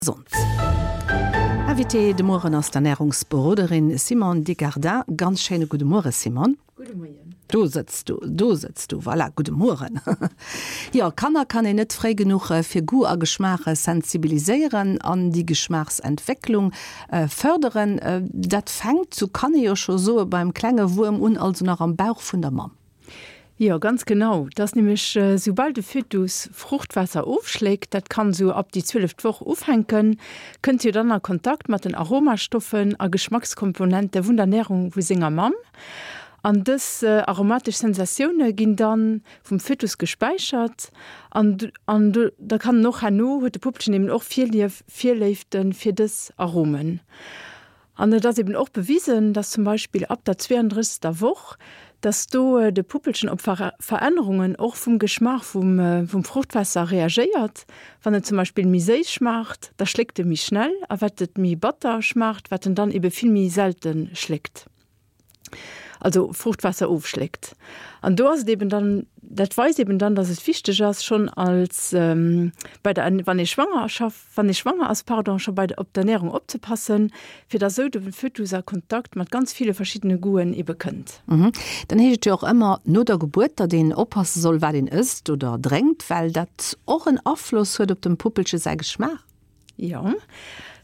Gesond. Invitée de Mueren ass d'Ernärungsberoderin Simone Desgardins. Ganz schéine gudde Muere Simone. Gudde Moien. Do sëtz du, do sëtz du, voilà, gudde Mueren. Jo, Kanner kann een net fréi genuch fir Goût a Geschmaach sensibiliséieren an déi Geschmaachsentwécklung fërderen. Dat fänkt, sou kann ee jo scho soe, beim klenge Wuerm un, also nach am Bauch vun der Mamm. Jo, ganz genau. Et ass nämlech, soubal de Fötus Fruchtwaasser ofschléckt, dat kann esou ab déi zwieleft Woch ufänken, kënnt jo dann a Kontakt mat den Aromastoffen a Geschmackskomponente vun der Närung vu senger Mamm. An dës aromatesch Sensatioune ginn dann vum Fötus gespäichert an an da kann en och herno, huet de Puppelchen eben och Virlief, Virléifte fir dës Aromen. An et ass eben och bewisen, dass zum Beispill ab der 32. Woch, dass do de Puppelchen op Verännerungen och vum Geschmaach vum Fruchtwaasser reagéiert. Wann et zum Beispill méi séiss schmaacht, da schléckt e méi schnell, a wat et méi batter schmaacht, wat en dann ebe vill méi selte schléckt. also Fruchtwaasser ofschléckt. An do ass et eben dann, dat weist eben dann, dass et wichteg ass, schonn als bei der, wann ee Schwangerschaft, wann ee schwanger ass, pardon, scho bei der, op d'Ernährung opzepassen, fir dass esou de Fötus a Kontakt mat ganz ville verschiddene Goûten ebe kënnt. Dann heescht et jo och ëmmer no der Gebuert, datt een oppasse soll, wat een ësst oder drénkt, well dat och en Afloss huet op dem Puppelche säi Geschmaach. Jo,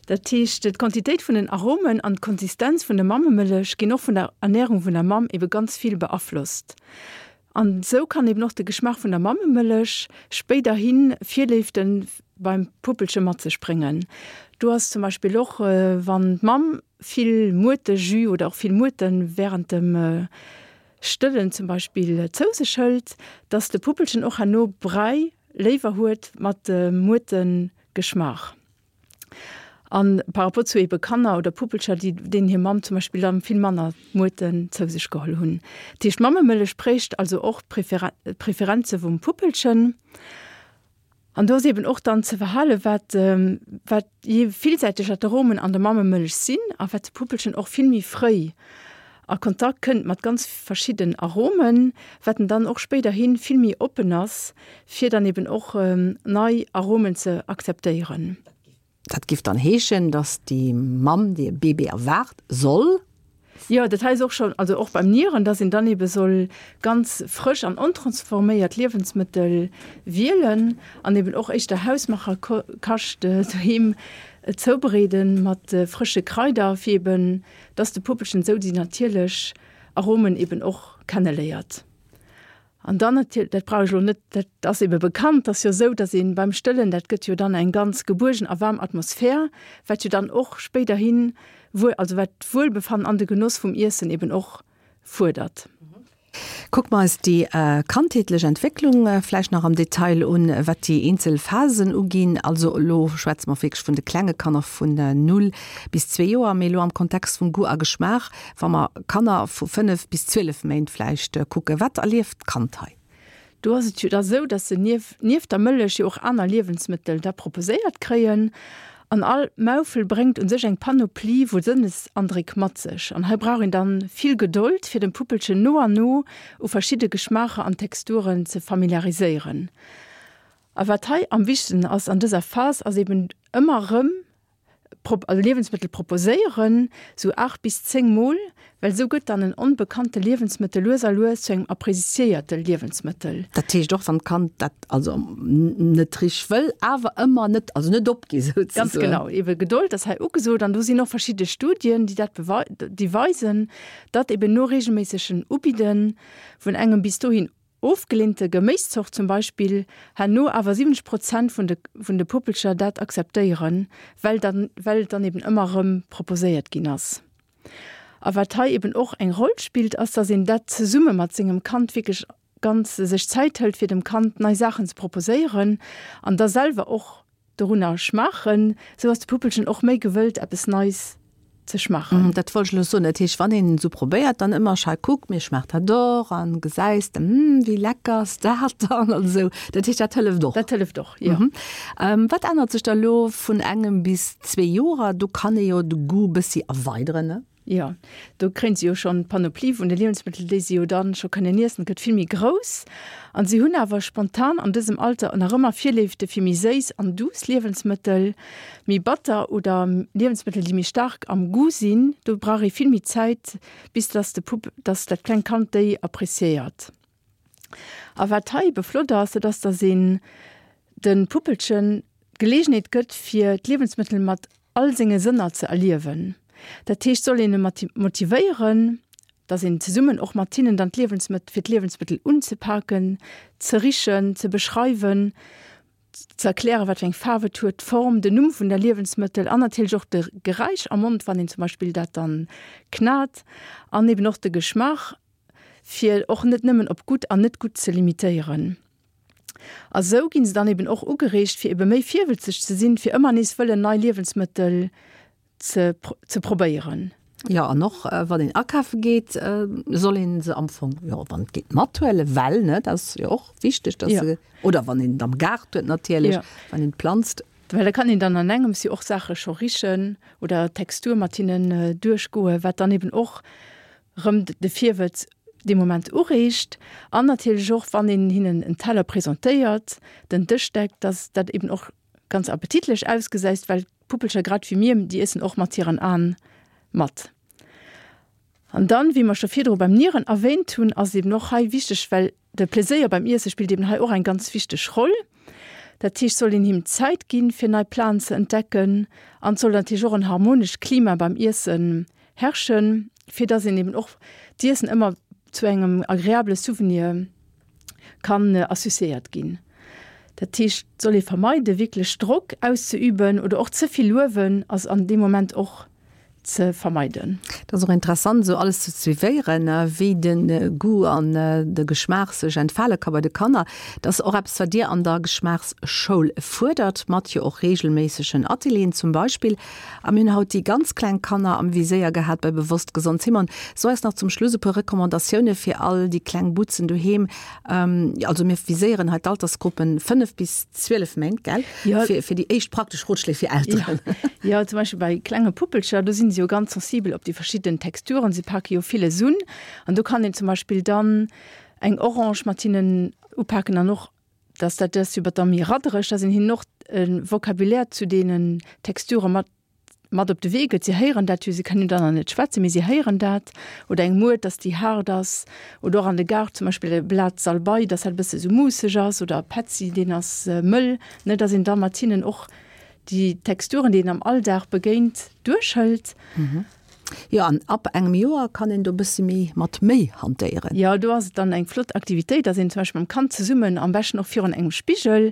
dat heescht, d'Quantitéit vun den Aromen an d'Konsistenz vun der Mammemëllech ginn och vun der Ernärung vun der Mamm ebe ganz vill beaflosst. An esou kann eben och de Geschmaach vun der Mammemëllech spéiderhi Virléifte beim Puppelche mat sech bréngen. Do ass zum Beispill och, wann d'Mamm vill Muertejus oder och vill Muerte wärend dem Stëllen zum Beispill zou sech hëlt, dass de Puppelchen och herno Bräi léiwer huet mat Muertengeschmaach. An par rapport zu ebe Kanner oder Puppelcher, déi deenen hir Mamm zum Beispill dann vill manner Muerten zou sech geholl hunn. Dat heescht, d'Mammemëllech prägt also och d'Preferenze vum Puppelchen. An do ass eben och dann ze verhalen, wat, wat je villsäiteger d'Aromen an der Mammemëllech sinn a wat de Puppelchen och vill méi fréi a Kontakt kënnt mat ganz verschidden Aromen, wat en dann och spéiderhi vill méi oppen ass, fir dann eben och nei Aromen ze akzeptéieren. Dat giff dann heeschen, dass déi Mamm, déi e Bébé erwaart, soll. Jo, dat hei ass och schonn, also och beim Nieren, dass een dann ebe soll ganz frësch an ontransforméiert Liewensmëttel wielen an eben och éischter Hausmacherkascht doheem zoubereede mat frësche Kraider, fir eben, dass de Puppelchen esou déi natierlech Aromen eben och kenneléiert. An dann natierlech, dat brauch ech elo net, dat ass ebe bekannt, ass jo esou, datt ee beim Stëllen, dat gëtt jo dann eng ganz gebuergen a waarm Atmosphär, wat jo dann och spéiderhin, also wat d'Wuelbefannen an de Genoss vum Iessen eben och fuerdert. Kucke mer eis déi kandheetlech Entwécklung vläicht nach am Detail un, wat déi eenzel Phasen uginn. Also elo schwätze mer wierklech vun de klenge Kanner vun null bis zwee Joer, mee elo am Kontext vum Goût a Geschmaach, Wa mer Kanner vu 5 bis 12 Méint vläicht kucken, wat erlieft d'Kand hei? Do ass et jo da sou, dass se nieft der Mëllech jo och aner Liewensmëttel da proposéiert kréien. An all Maufel bréngt u sech eng Panoplie vu Sënnesandréck mat sech. An hei brauch een dann vill Gedold, fir dem Puppelchen no an no u verschidde Geschmaacher an Texturen ze familiariséieren. A wat hei am wichtegsten ass an dëser Phas, ass eben ëmmer erëm also Liewensmëttel proposéieren, sou 8 bis 10 mol, well sou gëtt dann en onbekannte Liewensmëttel lues a lues zu engem appreciéierte Liewensmëttel. Dat heescht och wann d'Kand dat also net richteg wëll, awer ëmmer net, also net opgi souzesoen. Ganz genau, ebe Gedold ass hei ugesot an do sinn och verschidde Studien, déi dat déi weisen, datt eben no reegelméissegen Ubidde vun engem bis dohin Ofgeleente Geméiszort zum Beispill, herno awer 70 Prozent vun de vun de Puppelcher dat akzeptéieren, well dann well et dann eben ëmmer erëm proposéiert ginn ass. A wat hei eben och eng Roll spillt, ass, dass een dat zesumme mat sengem Kand wierklech ganz sech Zäit hëlt, fir dem Kand nei Saachen ze proposéieren an da selwer och Dorunner schmaachen, sou ass de Puppelchen och méi gewëllt eppes Neis ze schmaachen. Dat wollt ech elo soen, dat heescht wann een esou probéiert, dann ëmmer schei kuck mir schmaacht dat och an gesäis de hm wéi lecker ass dat dann an esou, dat heescht dat hëlleft och? Dat hëlleft och, jo. Wat ännert sech da elo vun engem bis zwee Joer? Do kann ee jo de Goût bëssi erweideren, ne? Jo, do kréien se jo schonn d'Panoplie vun de Liewensmëttel, déi se jo dann scho kënnen iessen, gëtt vill méi grouss. An si hunn awer spontan an dësem Alter nach ëmmer Virléifte fir méi séiss an duuss Liewensmëttel. Méi batter oder Liewensmëttel, déi méi staark am Goût sinn, do brauch ee vill méi Zäit, bis dass de Pupp, dass dat klengt Kand déi appreciéiert. A wat hei ebe flott ass, dat ass, dass een de Puppelchen d'Geleegenheet gëtt, fir d'Liewensmëttel mat all senge Sënner ze erliewen. Dat heescht, soll een e motivéieren, dass een zesummen och mat hinnen dann d'Liewensmëttel, fir d'Liewensmëttel unzepaken, ze richen, ze beschreiwen, ze erklären, wat fir eng Faarf et huet, d'Form, den Numm vun der Liewensmëttel an natierlech och de Geräisch am Mond, wann een zum Beispill dat dann knat an eben och de Geschmaach, fir och net nëmmen op gutt an net gutt ze limitéieren. A sou ginn se dann eben och ugereegt, fir ebe méi virwëlzeg ze sinn, fir ëmmer nees wëllen nei Liewensmëttel ze ze probéieren. Jo, an och wann een akafe geet, soll een se am Fong, jo, wann et geet, mathuelen, well, ne, dat ass jo och wichteg, dass se, oder wann een et am Gaart huet natierlech, wann een planzt. Well da kann een dann an engems jo och Saache scho richen oder d'Textur mat hinnen duerchgoen, wat dann eben och rëm de Virwëtz dee Moment ureegt an natierlech och, wann een hinnen en Teller presentéiert, den Dësch deckt, dass dat eben och ganz appetitlech ausgesäist, well d'Puppelcher, grad wéi mir, déi iessen och mat hiren Aen mat. An dann, wéi mer scho virdru beim Nieren erwähnt hunn, ass et eben och hei wichteg, well De Pleséier beim Iesse spillt eben hei och eng ganz wichteg Roll. Dat heescht, soll een him Zäit ginn, fir nei Platen ze entdecken an et soll natierlech och en harmonescht Klima beim Iessen herrschen, fir dass een eben och d'Iessen ëmmer zu engem agreabele Souvenir kann associéiert ginn. Dat heescht, et soll ee vermeiden, wierklech Drock auszeüben oder och ze vill luewen ass an deem Moment och ze vermeiden. Et ass och interessant esou alles ze suivéieren, wéi de Goût an de Geschmaach sech entfale ka bei de Kanner. Dat ass och eppes, wat Dir an der Geschmaachsschoul fuerdert, mat jo och reegelméissegen Atelieren zum Beispill. A mir hunn haut déi ganz kleng Kanner am Viséier gehat bei Bewosst Gesond. Simone, so eis nach zum Schluss e puer Recommandatioune fir all déi kleng Butzen doheem. Also mir viséieren hei d'Altersgruppen 5 bis 12 Méint, gell? Ja. Fir, fir déi éischt praktesch Rotschléi fir Elteren. Ja. ja, zum Beispill bei klenge Puppelcher, do sinn se jo ganz sensibel op déi verschidden Texturen. Se pake jo villes un. An do kann een zum Beispill dann eng Orange mat hinnen upaken an och, dass dat ass jo da méi raddereg, dass een hinnen och e Vocabulaire zu deenen Texture mat mat op de Wee gëtt. Si héieren dat jo, si kënnen jo dann nach net schwätzen, mee si héieren dat. Oder eng Muert, dass déi haart ass. Oder och an de Gaart zum Beispill e Blat Salbei, dass dat e bësse sou muusseg ass. Oder e Petzi, deen ass mëll. Ne, dass een da mat hinnen och déi Texturen, déi een am Alldag begéint, duerchhëlt. Jo, an ab engem Joer kann een do e bësse méi mat méi hantéieren. Jo, do ass et dann eng flott Aktivitéit, dass een zum Beispill mam Kand zesummen, am beschten och virun engem Spigel,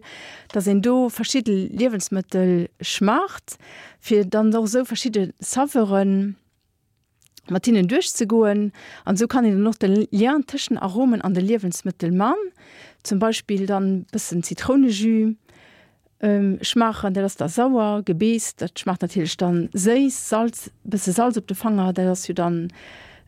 dass een do verschidde Liewensmëttel schmaacht, fir dann och esou verschidde Saveuren mat hinnen duerchzegoen. An esou kann een dann och de Lien tëschent Aromen an de Liewensmëttel man. Zum Beispill dann bëssen Zitrounejus schmaachen, dat ass da sauer, Gebeess, dat schmaacht natierlech dann séiss, Salz, bësse Salz op de Fanger, dat ass jo dann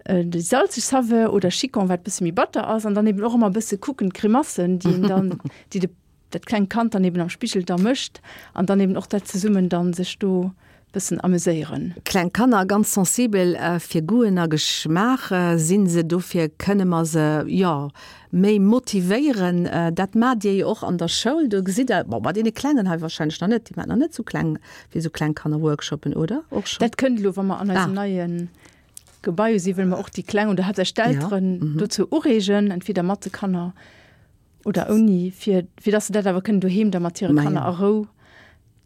déi salzeg Saveur, oder Chicon, wat bësse méi batter ass. An dann eben och ëmmer bësse kucken, d'Grimassen, déi een dann, déi de dat klengt Kand dann eben am Spigel da mécht an dann eben och dat zesummen dann sech do bëssen ameséieren. Kleng Kanner, ganz sensibel fir Goûten a Geschmaach sinn se, dofir kënne mer se jo méi motivéieren. Dat maacht Dir jo och an der Schoul, do gesitt Der, bon bei deene Klengen hei wahrscheinlech nach net, déi maacht nach net sou kleng fir sou kleng Kanner Workshoppen, oder? Och schonn? Dat kënnt elo, wa mer an eisem neie Gebai si, wëlle mer och déi Kleng oder haaptsächlech d'Elteren dozou ureegen, entweder mat de Kanner Oder ouni, fir, fir dass se dat awer kënnen doheem da mat hire Kanner a Rou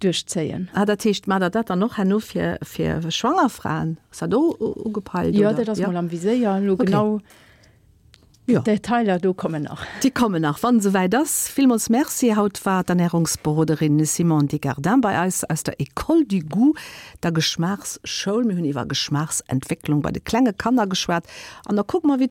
duerchzéien. Ah, dat heescht, maacht Der dat dann och herno fir, fir schwanger Fraen? Ass dat och ugepeilt, oder? Jo, dat ass mol am Viséier. Elo genau d'Detailer do kommen nach. Déi kommen nach, wann et esouwäit ass. Villmools Merci. Haut war d'Ernärungsberoderin Simone Desgardins bei eis aus der École du Goût, der Geschmaachsschoul. Mir hunn iwwer Geschmaachsentwécklung bei de klenge Kanner geschwat. An da kucke mer, wéi.